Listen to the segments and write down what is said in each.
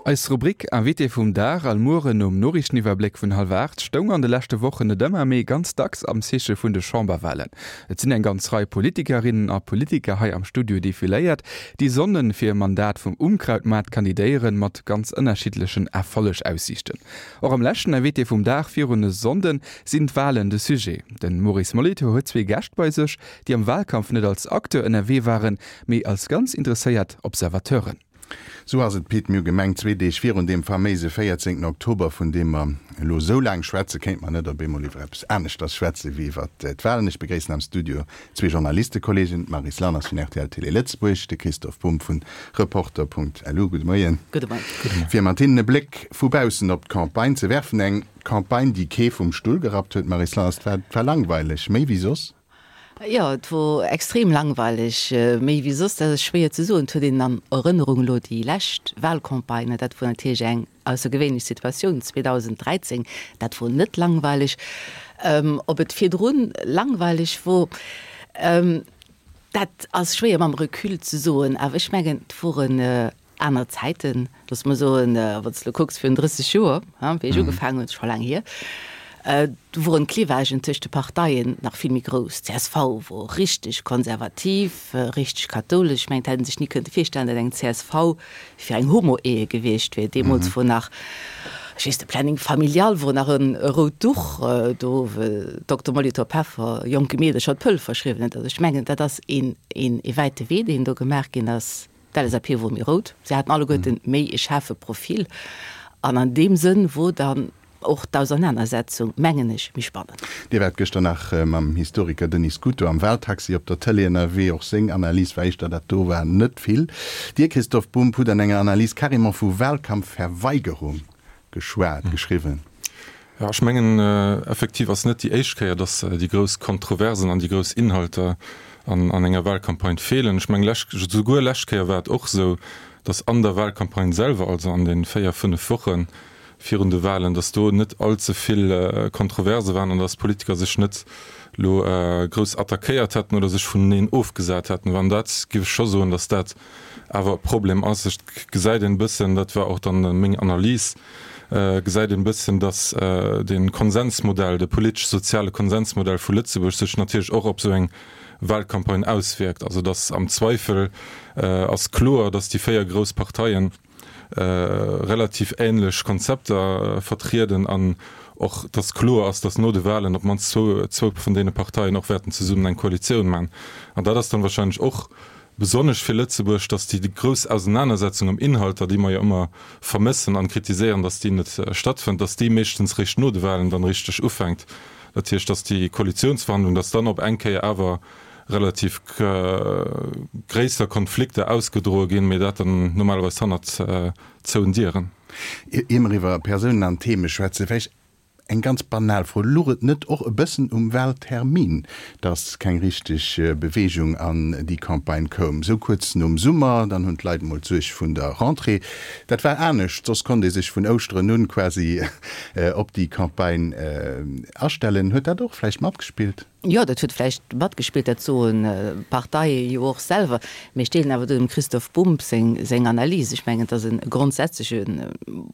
Eis Rubrik Invité vum Dag all Mueren nom Noriichteniwwerbléck vun hallwer 8 stoung an de leschte Wochen net ëmmer, mee ganz dacks am Zeeche vun de Chamberwahlen. Et sinn eng ganz Rei Politikerinnen a Politiker hei am Studio defiléiert, déi sonnen fir e Mandat vum Unkrautmaart kandidéieren, mat ganz ënnerschiddlechen Erfollegaussiichten. Och am leschten Invité vum Dag virun e Sonnden sinn d'Wahlen de Sujet. De Maurice Molitor huet zwee Gäscht bei sech, déi am Wahlkampf net als Acteur ënnerwee waren, mee als ganz interesséiert Observateuren. Sou ass et, Pit. Mir hu gemengt, zwee Deeg virun deem faméise 14 Oktober, vun deem mer elo esou laang schwätzen, kéinte mer net op eemol iwwer eppes aneschters schwätzen, wéi iwwer d'Wahlen. Ech begréissen am Studio zwee Journalistekollegen, d'Maryse Lanners vun rtl Télé Lëtzebuerg, de Christoph Bumb vun Reporter.lu. Gudde Moien. Gudde Moien. Fir mat hinnen e Bléck vu baussen op d'Campagne ze werfen. Eng Campagne, déi kee vum Stull gerappt huet, Maryse Lanners. Et war langweileg, méi wéi soss. Jo, et wor extrem langweileg, méi wéi soss, dat ass schwéier ze soen. Et huet een an Erënnerung elo déi lescht Wahlcampagne, dat wor natierlech eng aussergewéinlech Situatioun 2013, dat wor net langweileg. Ob et virdrun langweileg wor, dat ass schwéier mam Recul ze soen, awer ech mengen, et woren Aner Zäiten, looss mer soen, wann s de elo kucks, virun 30 Joer, wéi ech ugefaangen hunn, scho laang hier, do woren d'Clivagen tëscht de Parteien nach vill méi grouss. D'CSV wor richteg konservativ, richteg kathoulesch. Ech mengen, et hätt ee sech ni kënnte virstellen, datt eng csv fir eng Homo-Ehe gewiescht wier. Deemools wor nach, ech weess, de Planning familial wor nach e rout Duch, do wou Dokter Molitor Peffer jonke Meedercher d'Pëll verschriwwen huet. Also ech mengen, dat ass een wäite Wee, deen do gemaach ginn ass. D'LSAP wor méi rout, se haten alleguerten méi e schaarfe Profil an an deem Sënn wor dann och d'Ausernanersetzung, mengen ech, méi spannend. Dir waart gëschter nach mam Historiker Denis Scuto am Wahltaxi op der Tëlee ënnerwee. Och seng Analys war éischter, dat do war net vill. Dir, Christoph Bumb, hutt an enger Analys carrément vu Wahlkampfverweigerung geschwat, geschriwwen. Jo, ech mengen, effektiv ass net déi éischt Kéier, dass déi grouss Kontroversen an déi grouss Inhalter an enger Wahlcampagne feelen. Ech mengen, lech, souguer lescht Kéier war et och esou, dass an der Wahlcampagne selwer, also an de véier, fënnef Woche virun de Wahlen, dass do net allze vill Kontroverse waren an dass d'Politiker sech net elo grouss attackéiert hätten oder sech vuneneen ofgesat hätten. An dat géif ech scho soen, dass dat awer e Problem ass. Et gesäit een e bëssen, dat war och dann meng Analys, gesäit een e bëssen, datt de Konsensmodell, de politesch-soziale Konsensmodell vu Lëtzebuerg sech natierlech och op esou eng Wahlcampagne auswierkt. Also datt am Zweifel ass kloer, datt déi véier grouss Parteien relativ ähnlech Konzepter vertrieden an och datt kloer ass, datt no de Wahlen op d'mannst zwou vun deene Parteien och wäerten zesummen eng Koalitioun maachen. An dat ass dann wahrscheinlech och Besonnesch fir Lëtzebuerg, datt déi grouss Ausenanersetzung ëm Inhalter, déi mer jo ëmmer vermëssen an kritiséieren, datt déi net stattfënnt, datt déi meeschtens réischt no de Wahlen dann richteg ufänkt. Dat heescht, datt déi Koalitionsverhandlung, datt dann op eng Kéier awer relativ gréisser Konflikter ausgedroe ginn, mee dat dann normalerweis hannert zouen Dieren. Ier mer iwwer Persounen an Theme schwätzen, vläicht Eng ganz banal Fro, Luch et net och e bëssen um Wahltermin, dass keng richteg Beweegung an déi Campagne koum? Sou kuerz nom Summer, dann hunn d'Leit emol d'Suerg vun der Rentrée. Dat war anescht, soss konnt ee sech vun Ouschteren un quasi op déi Campagne astellen. Huet dat och vläicht matgespillt? Jo, dat huet vläicht matgespillt, dat soen d'Parteie jo och selwer. Mee ech deelen awer do dem Christoph Bumb seng seng Analys. Ech mengen, et ass e grondsätzleche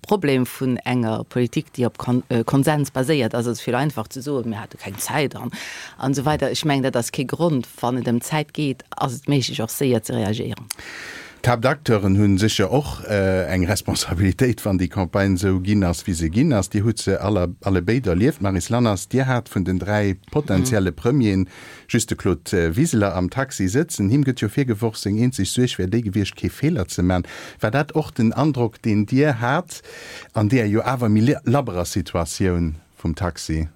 Problem vun enger Politik, déi op Konsens baséiert ass. Et ass vill einfach ze soen, mir hate keng Zäit an an esou weider. Ech mengen, dat ass kee Grond. Wann et ëm Zäit geet, ass et méiglech och séier ze reagéieren. D'Haaptacteuren hu sécher och eng Responsabilitéit, wann déi Campagne esou ginn ass, wéi se ginn ass. Dir hutt se aller allebéid erlieft. Maryse Lanners, Dir hat vun den 3 potentielle Premieren just de Claude Wiseler am Taxi sëtzen. Him gëtt jo virgeworf, seng eenzeg Suerg wär déi gewiescht, kee Feeler ze man. War dat och den Androck, deen Dir hat an deeër jo awer méi labberer Situatioun? vum Taxi?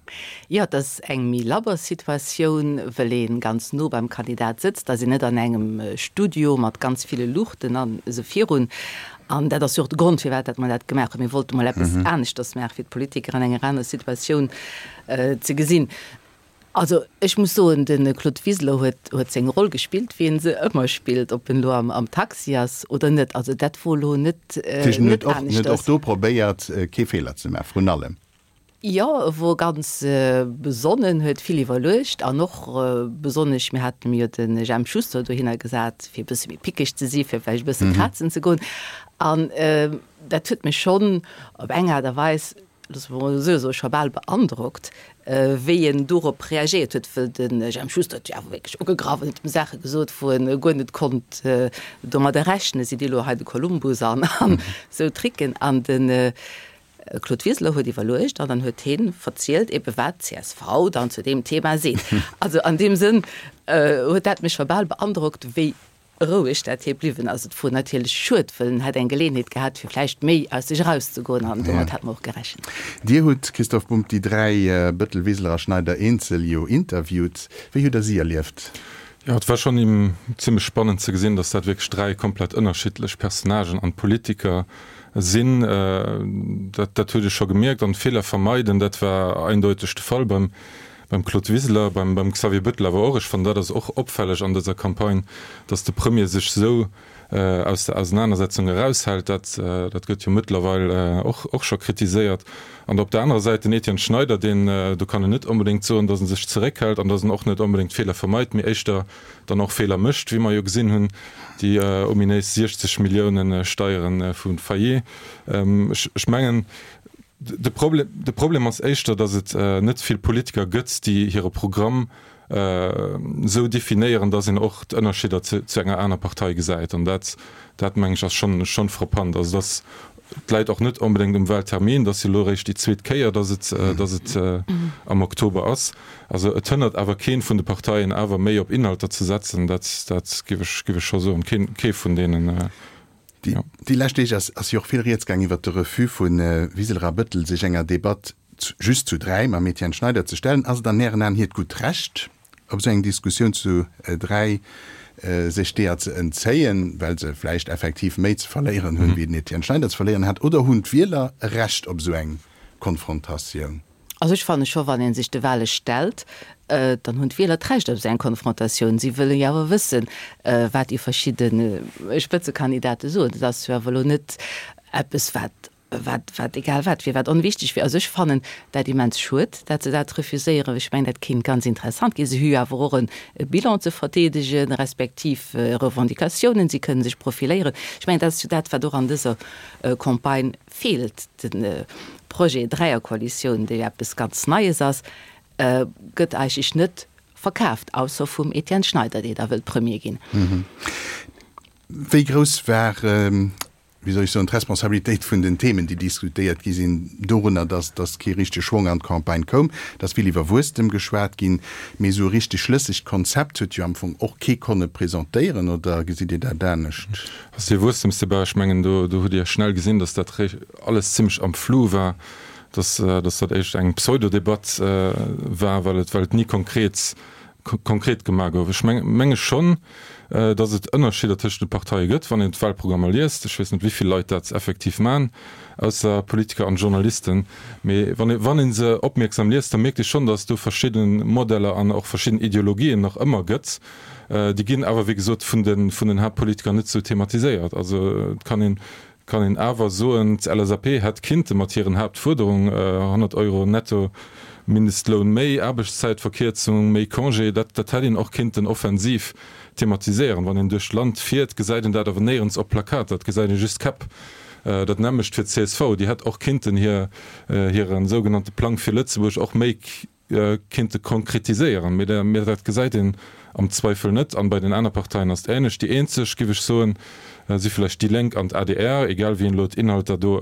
Jo, et ass eng méi labber Situatioun, wëll ee ganz no beim Kandidat sëtzt, ass een net an engem Studio mat ganz ville Luuchten an esou virun. An dat ass jo och de Grond, firwat dat mer dat gemaach hunn. Mir wollte mol eppes aneschters maachen, fir d'Politiker an enger aner Situatioun ze gesinn. Also ech muss soen, de Claude Wiseler huet huet seng Roll gespillt, wéi en se ëmmer spillt, ob en elo am am Taxi ass oder net. Also dat wor elo net net aneschters. Huet och do probéiert, kee Feeler ze maachen, vrun allem. Jo, e wor ganz besonnen, huet vill iwwerluecht an och besonnesch, mir haten jo de Jemp Schuster dohinner gesat, fir e bësse méi pickeg ze si, fir vläicht e bësse krazen ze goen. An dat huet mech schonn op eng Aart a Weis, loosse mer emol esou soen, scho bal beandrockt, wéi en dorop reagéiert huet, wëll de Jemp Schuster huet jo awer wierklech ugegraff an huet em Saache gesot, wou en guer net konnt domadder rechnen, Sidd Dir elo hei de Kolumbus an esou Tricken. An de Claude Wiseler huet iwwerluecht an dann huet hie verzielt ebe wat d'CSV dann zu deem Thema seet. Also an deem Sënn huet dat mech scho bal beandrockt, wéi roueg dat hie bliwwen ass. Et wor natierlech schued, wëll en hätt eng Geleeënheet gehat, fir vläicht méi aus sech erauszegoen an domat hätte mer och gerechent. Dir hutt, Christoph Bumb, déi 3, Bëttel, Wiseler a Schneider, eenzel jo interviewt. Wéi hutt Der si erlieft? Jo, et war schonn zimlech spannend ze gesinn, datt dat wierklech 3 komplett ënnerschiddlech Personnagen an Politiker sinn. Dat, dat huet ee scho gemierkt. An Feeler vermeiden, dat war eindeuteg de Fall beim, beim Claude Wiseler, beim, beim Xavier Bettel awer och. Ech fannen, dat ass och opfälleg an dëser Campagne, datt de Premier sech esou aus der Ausenanersetzung eraushält. Dat, dat gëtt jo mëttlerweil och, och scho kritiséiert. An op der anerer Säit den Etienne Schneider, deen, do kann een net onbedéngt soen, datt e sech zeréckhält an datt en och net onbedéngt Feeler vermeit, mee éischter dann och Feeler mécht, wéi mer jo gesinn hunn, déi ominéis 60 Millioune Steiere vu Fayet. Ech mengen, de Problem, de Problem ass éischter, datt et net vill Politiker gëtt, déi hire Programm esou definéieren, datt een och d'Ënnerscheeder zu enger aner Partei gesäit. An dat, dat meng ech, ass schonn, schonn frappant. Also datt et läit och net onbedéngt um Wahltermin, et ass jo elo eréischt déi zweet Kéier, datt et, datt et am Oktober ass. Also et hënnert awer keen vun de Parteien awer méi op Inhalter ze setzen, dat, dat géif ech, géif ech scho soen. Keen, kee vun deenen. Déi, déi lescht Deeg ass, ass jo och vill Rieds gaang iwwert de Refus vu Wiseler a Bëttel, sech enger Debatt just zu 3 mam Etienne Schneider ze stellen. Ass et an Ären Aen hiert gutt Recht, op esou eng Diskussioun zu 3 sech deeër ze entzéien, well se vläicht effektiv méi ze verléieren hunn, wéi den Etienne Schneider ze verléieren hat? Oder hunn d'Wieler e Recht op esou eng Konfrontatioun? Also ech fanne scho, wann ee sech de Wahle stellt, dann hunn d'Wieler d'Recht op esou eng Konfrontatioun. Si wëlle jo awer wëssen, wat déi verschidde Spëtzekandidate soen. Dat ass jo awer elo net eppes, wat, wat, wat egal wat wier, wat onwichtig wier. Also ech fannen dat immens schued, dat se dat refuséieren. Ech mengen, dat kéint ganz interessant ginn. Se hu jo awer och e Bilan ze verdeedegen, respektiv Revendicatiounen, si kënnen sech profiléieren. Ech mengen, dat ass jo dat, wat och an dëser Campagne feelt. De Projet Dräierkoalitioun, dee jo eppes ganz Neies ass, gëtt eigentlech net verkaaft, ausser vum Etienne Schneider, dee da wëllt Premier ginn. Wéi grouss war, wéi soll ech soen, d'Responsabilitéit vun den Themen, déi diskutéiert gi sinn, dorunner, datt datt kee richtege Schwong an d'Campagne koum? Et ass vill iwwer Wuesstem geschwat ginn, mee esou e richteg schlëssegt Konzept huet jo am Fong och kee konne presentéieren, oder gesitt Dir dat anescht? Also dee Wuesstemsdebat, ech mengen, do do hutt Dir schnell gesinn, datt dat alles zimlech am Flou war, datt datt dat éischt eng Pseudodebatt war, well et well et ni konkret konkret gemaach gouf. Ech menge schonn, datt et Ënnerscheeder tëschent de Parteie gëtt, wann een d'Wahlprogrammer liest. Ech weess net, wéi vill Leit dat effektiv maachen, ausser Politiker an Journalisten. Mee wann ee wann ee se opmierksam liest, da mierkt ee schonn, datt et do verschidde Modeller an och verschidden Ideologien nach ëmmer gëtt. Déi ginn awer, wéi gesot, vun de vun den Haaptpolitiker net esou thematiséiert. Also et kann een kann een awer soen, d'LSAP hätt kinnte mat hiren Haaptfuerderung, 100 Euro netto Mindestloun méi, Aarbechtszäitverkierzung, méi Congé, dat dat hätt een och kinnten offensiv thematiséieren. Wann een duerch d'Land fiert, gesäit een dat awer néierens op Plakater, et gesäit ee just Käpp. Dat nämmlecht fir d'CSV, déi hätt och kinnten hir hire sougenannte Plang fir Lëtzebuerg och méi kinnte konkretiséieren, mee dat gesäit een am Zweifel net. An bei den aner Parteien ass et ähnlech. Déi eenzeg, giff ech soen, si vläicht déi Lénk an d'ADR, egal wéi een elo d'Inhalter do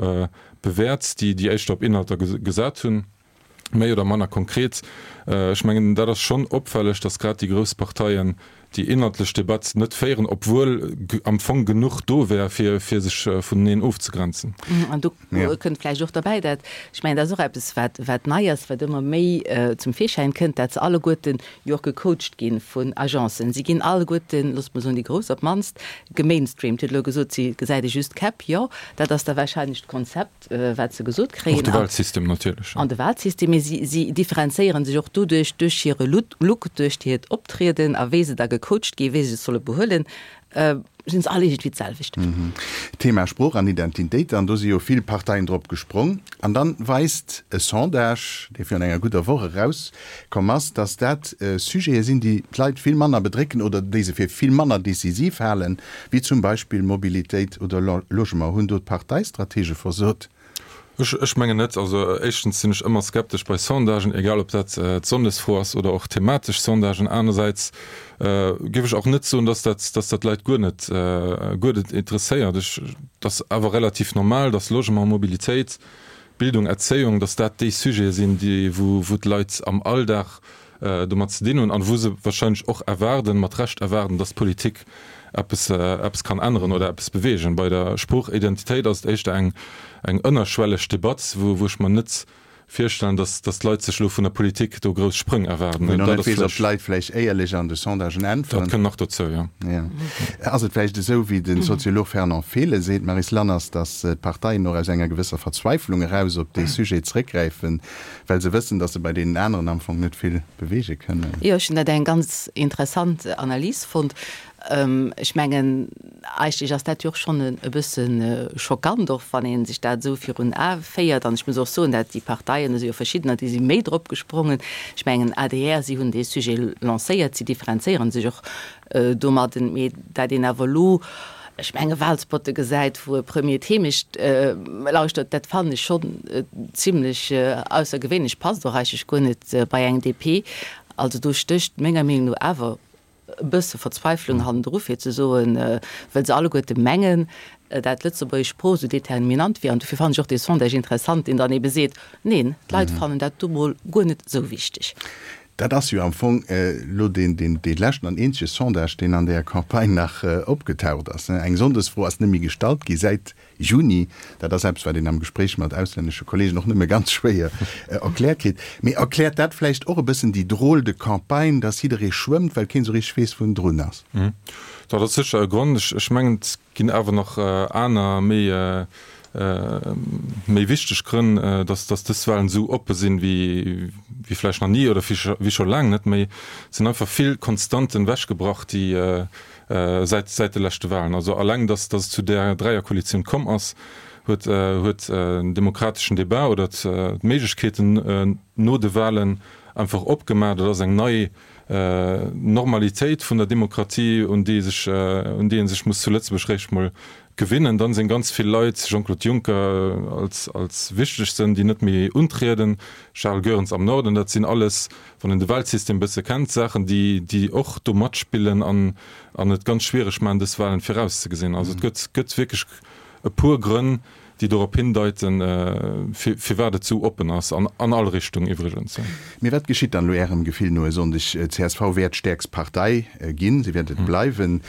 bewäert, déi déi éischter op Inhalter gesat hunn, méi oder manner konkret. Ech mengen, dat ass schonn opfälleg, datt grad déi grouss Parteien déi inhaltlech Debatt net féieren, obwuel am Fong genuch do wär, fir sech vuneneen ofzegrenzen. An do kënnt vläicht och derbäi, dat, ech mengen, dat ass och eppes, wat, wat nei ass, wat ëmmer méi zum Virschäin kënnt, dat se alleguerten jo och gecoacht gi vun Agencen. Si ginn alleguerten, loosse mer soen, déi Grouss op d'mannst, gemainstreamt. Dir hutt elo gesot, si gesäit ee just d'Käpp. Jo, dat ass da wahrscheinlech d'Konzept. wat se gesot kréien. Och de Wahlsystem natierlech. An de Wahlsystem, mee si, si differenzéiere sech och doduerch, duerch hire Look, duerch hiert Optrieden a wéi se da ge. gecoacht gi wéi se sech solle behuelen, sinn se all iergendwéi d'selwecht. Thema Sprooch an Identitéit, an do si jo vill Parteien drop gesprong. An dann weist e Sondage, dee virun enger gudder Woch erauskomm ass, datt dat Sujete sinn, déi d'Leit vill manner bedrécken oder déi se fir vill manner decisiv halen, wéi zum Beispill Mobilitéit oder Logement. Hunn do d'Parteistratege versot? Ech mengen net. Also éischtens sinn ech ëmmer skeptesch bei Sondagen, egal ob dat d'Sonndesfro ass oder och thematesch Sondagen. Anersäits géif ech och net soen, datt dat, datt dat d'Leit guer net, guer net interesséiert. Ech, et ass awer relativ normal, datt Logement, Mobilitéit, Bildung, Erzéiung, datt dat déi Sujete sinn, déi, wou, wou d'Leit am Alldag domat ze dinn hunn an wou se wahrscheinlech och erwaarden, mat Recht erwaarden, datt d'Politik eppes, eppes kann änneren oder eppes beweegen. Bei der Sproochidentitéit ass et éischter eng, eng ënnerschwelleg Debatt, wou, wou ech mer net virstellen, datt, datt d'Leit sech elo vun der Politik do grouss Sprëng erwaarden. Wou een och net weess, ob d'Leit vläicht éierlech an de Sondagen äntweren. Dat kënnt nach dozou, jo. Jo. Ass et vläicht esou, wéi de Soziolog Fernand Fehlen seet, Maryse Lanners, datt d'Parteien och aus enger gewësser Verzweiflung eraus op dee Sujet zréckgräifen, Well se wëssen, datt se bei deenen aneren am Fong net vill beweege kënnen. Jo, ech hunn dat eng ganz interessant Analys fonnt. Ech mengen, eigentlech ass dat jo och schonn e bësse schockant, och wann ee sech dat esou virun Ae féiert. An ech muss och soen, dat déi Parteien, do si jo verschiddener, déi si méi drop gesprongen. Ech mengen, adr, si hunn dee Sujet lancéiert, si differenzéiere sech och domadden, mee dat een awer elo, ech menge Wahlspotte gesäit, wou e Premier d'Heemecht lauschtert, dat fannen ech schonn zimlech aussergewéinlech, passt och eigentlech guer net bei eng DP. Also do stécht menger Meenung no awer e bësse Verzweiflung hannendru, fir ze soen, well se alleguerte mengen, dat d'lëtzebuergesch Sprooch esou determinant wier. An dofir fannen ech och dee Sondage interessant, deen dann ebe seet, neen, d'Leit fannen dat du mol guer net esou wichteg. Dat ass jo am Fong elo deen leschten an eenzege Sondage, deen an där Campagne nach opgetaucht ass. Eng Sonndesfro ass net méi gestallt gi säit Juni. Dat ass eppes, wat een am Gespréich mat auslännesche Kollegen och nëmme ganz schwéier erkläert kritt. Mee erkläert dat vläicht och e bëssen déi drôle de campagne, dass jidderee schwëmmt, well keen esou richteg weess, wou en drun ass? Dat ass sécher e Grond. Ech mengen, et ginn awer nach aner, méi, méi wichteg Grënn, dass, dass dës Wahlen esou oppe sinn, wéi, wéi vläicht nach ni oder wéi scho laang net méi. Et sinn einfach vill Konstanten ewechgebrach, déi säit, säit de leschte Wahlen. Also alleng, dass, dass et zu där Dräierkoalitioun komm ass, huet, huet den demokrateschen Débat oder d'Méiglechkeeten no de Wahlen einfach opgemaach. Dat ass eng nei Normalitéit vun der Demokratie, un déi sech, un déi ee sech muss zu Lëtzebuerg réischt mol gewinnen. Dann sinn ganz vill Leit, Jean-Claude Juncker als, als wichtegsten, déi net méi untrieden, Charles Goerens am Norden, dat sinn alles, wann een de Wahlsystem e bësse kennt, Saachen, déi, déi och do matspillen an, an et ganz schwiereg maachen, dës Wahlen virauszegesinn. Also et gëtt, gëtt wierklech e puer Grënn, déi dorop hindeiten, firwat et sou oppen ass, an an all Richtung iwwregens. Mee wat geschitt dann elo Ärem Gefill no e Sonndeg? Csv wäert stäerkst Partei ginn, se wäert et bleiwen.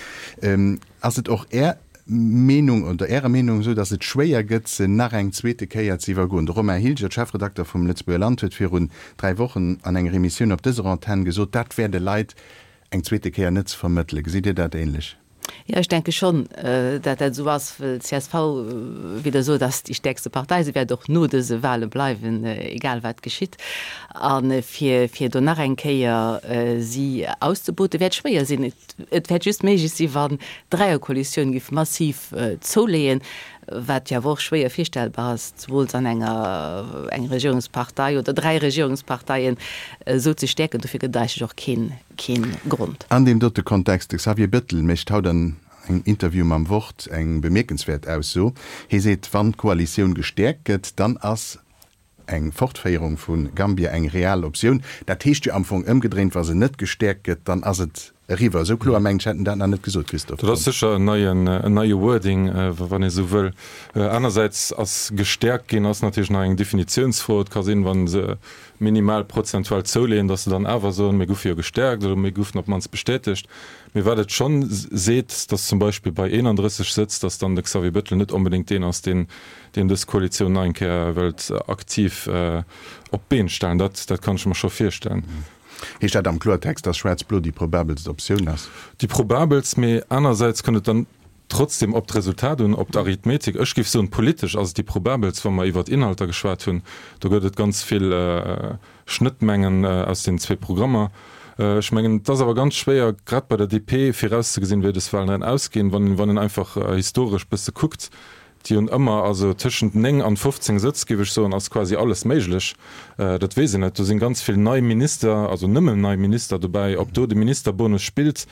Ass et och Är Meenung oder Ärer Meenung esou, datt et schwéier gëtt, se nach eng zweete Kéier ze iwwergoen? De Romain Hilgert, Chefredakter vum Lëtzebuerger Land, huet virun 3 Wochen an enger Emissioun op dëser Antenn gesot, dat wär de Leit eng zweete Kéier net ze vermëttelen. Gesitt Dir dat ähnlech? Jo, ech denke schonn, dat dat esou ass, well csv, wéi Der sot, ass déi stäerkste Partei. Se wäert och no dëse Wahle bleiwen, egal wat geschitt. A fir, fir do nach eng Kéier si auszeboten, wäert schwéier sinn. Et wäert just méiglech sinn, wann d'Dräierkoalitioun géif massiv zouleeën, wat jo awer och schwéier virstellbar ass, zemools an enger eng Regierungspartei oder 3 Regierungsparteien esou ze stäerken. Dofir gëtt et eigentlech och keen, keen Grond. An deem dote Kontext, de Xavier Bettel mécht haut an engem Interview mam Wort eng bemierkenswäert Ausso. Hie seet, wann d'Koalitioun gestäerkt gëtt, dann ass eng Fortféierung vu Gambia eng real Optioun. Dat heescht jo am Fong ëmgedréint, wa se net gestäerkt gëtt, dann ass et eriwwer. Esou kloer, mengen ech, hätt en dat nach net gesot, Christophe Dat ass sécher en neien, en neie Wording, wann ee sou wëll. Anersäits ass gestäerkt ginn ass natierlech nach eng Definitiounsfro. Et ka sinn, wa se minimal prozentual zouleeën, datt se dann awer soen, mir goufe jo gestäerkt oder mir goufen op d'mannst bestätegt. Mee wat et schonn seet, datt zum Beispill bei 31 Sëtz, datt dann de Xavier Bettel net onbedéngt deen ass, deen deen dës Koalitioun nach eng Kéier wëllt aktiv op d'Been stellen. Dat, dat kann ech mer scho virstellen. Heescht dat am Kloertext, datt Schwaarz-Blo déi probabelst Optioun ass? Déi probabelst, mee anersäits kënnt et dann trotzdem op d'Resultat un, op d'Arithmetik. Ech géif soen, politesch ass et déi probabelst, wa mer iwwert Inhalter geschwat hunn. Do gëtt et ganz vill Schnëttmengen aus den zwee Programmer. Ech mengen, et ass awer ganz schwéier, grad bei der DP, virauszegesinn, wéi dës Wahlen dann ausginn, wann een einfach historesch bësse kuckt. Déi hunn ëmmer, also tëschent 9 an 15 Sëtz, géif ech soen, ass quasi alles méiglech. Dat weess een net. Do sinn ganz vill nei Minister, also nëmmen nei Minister dobäi. Ob do de Ministerbonus spillt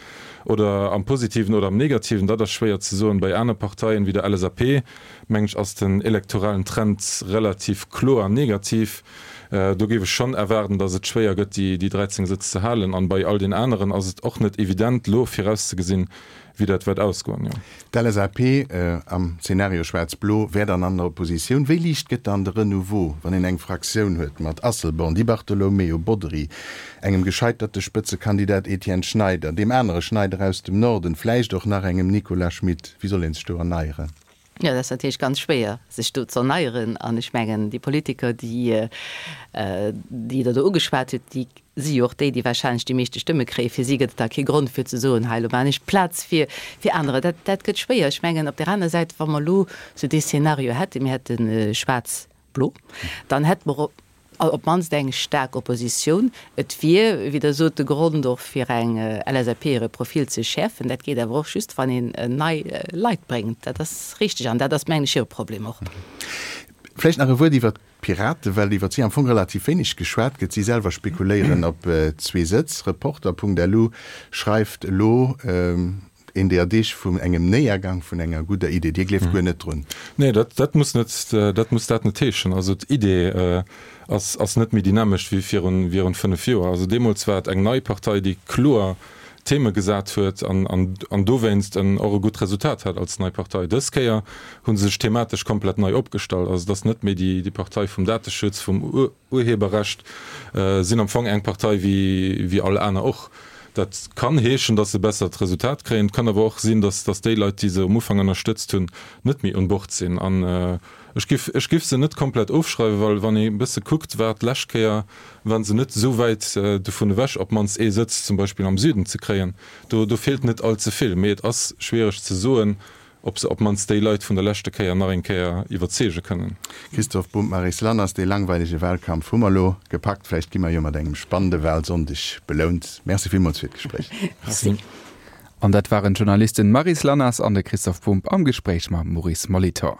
oder am Positiven oder am Negativen, dat ass schwéier ze soen. Bei aner Parteien, wéi der LSAP, mengen ech, ass den elektoralen Trend relativ kloer negativ. Do géif ech schonn erwaarden, datt et schwéier gëtt, déi 13 Sëtz ze halen. An bei all den aneren ass et och net evident, elo virauszegesinn, wéi dat wäert ausgoen, jo. D'LSAP am Zeenario Schwaarz-Blo wär dann an der Oppositioun. Wéi liicht gëtt dann de Renouveau, wann een eng Fraktioun huet mat Asselborn, Di Bartolomeo, Bodry, engem gescheiterte Spëtzekandidat Etienne Schneider, deem anere Schneider aus dem Norden, vläicht och nach engem Nicolas Schmit? Wéi soll ee sech do erneieren? Jo, dat ass natierlech ganz schwéier, sech do ze erneieren. An ech mengen, déi Politiker, déi, déi Der do ugeschwat hutt, déi si jo och déi, déi wahrscheinlech déi meeschte Stëmme kréien. Fir si gëtt et da kee Grond, fir ze soen, hei, elo maachen ech Plaz fir, fir anerer. Dat, dat gëtt schwéier. Ech mengen, op där aner Säit, wa mer elo sou dee Szenario hätten, mir hätte schwaarz-blo, dann hätte mer op d'mannst eng staark Oppositioun. Et wier, wéi Der sot, de Grond och fir eng LSAP hire Profil ze schäerfen. Dat geet awer och just, wann een nei Leit bréngt. Dat ass richteg an dat ass, mengen ech, hire Problem och. Vläicht nach e Wuert iwwert d'Piraten, well iwwert si am Fong relativ wéineg geschwat gëtt. Si selwer spekuléieren op zwee Sëtz. Reporter.lu schreift elo, Een deeër Deeg vun engem Néiergang vun enger gudder Idee. Dir gleeft guer net drun? Nee, dat, dat muss net, dat muss dat net heeschen. Also d'Idee ass, ass net méi dynamesch wéi virun, virun 5 Joer. Also deemools war et eng nei Partei, déi kloer Theme gesat huet an, an, an dowéinst en och e gutt Resultat hat als nei Partei. Dës Kéier hu se sech thematesch komplett nei opgestallt. Also et ass net méi déi, déi Partei vum Dateschutz, vum Urheberrecht, sinn am Fong eng Partei wéi all aner och. Dat kann heeschen, datt se e bessert Resultat kréien. Et kann awer och sinn, datt datt déi Leit, déi se um Ufank ënnerstëtzt hunn, net méi un Bord sinn. An ech giff ech giff se net komplett ofschreiwen, well wann ee e bësse kuckt, war d'lescht Kéier waren se net esou wäit dovun ewech, op d'mannst ee Sëtz zum Beispill am Süden ze kréien. Do do feelt net all ze vill. Mee et ass schwiereg ze soen, ob se op d'mannst déi Leit vun der leschte Kéier nach eng Kéier iwwerzeege kënnen. Christophe Bumb, Maryse Lanners, dee langweilege Wahlkampf hu mer elo gepackt. Vläicht gi mer jo mat engem spannende Wahlsonndeg belount. Merci villmools fir d'Gespréich. Merci. An dat waren d'Journalisten Maryse Lanners an de Christophe Bumb am Gespréich mam Maurice Molitor.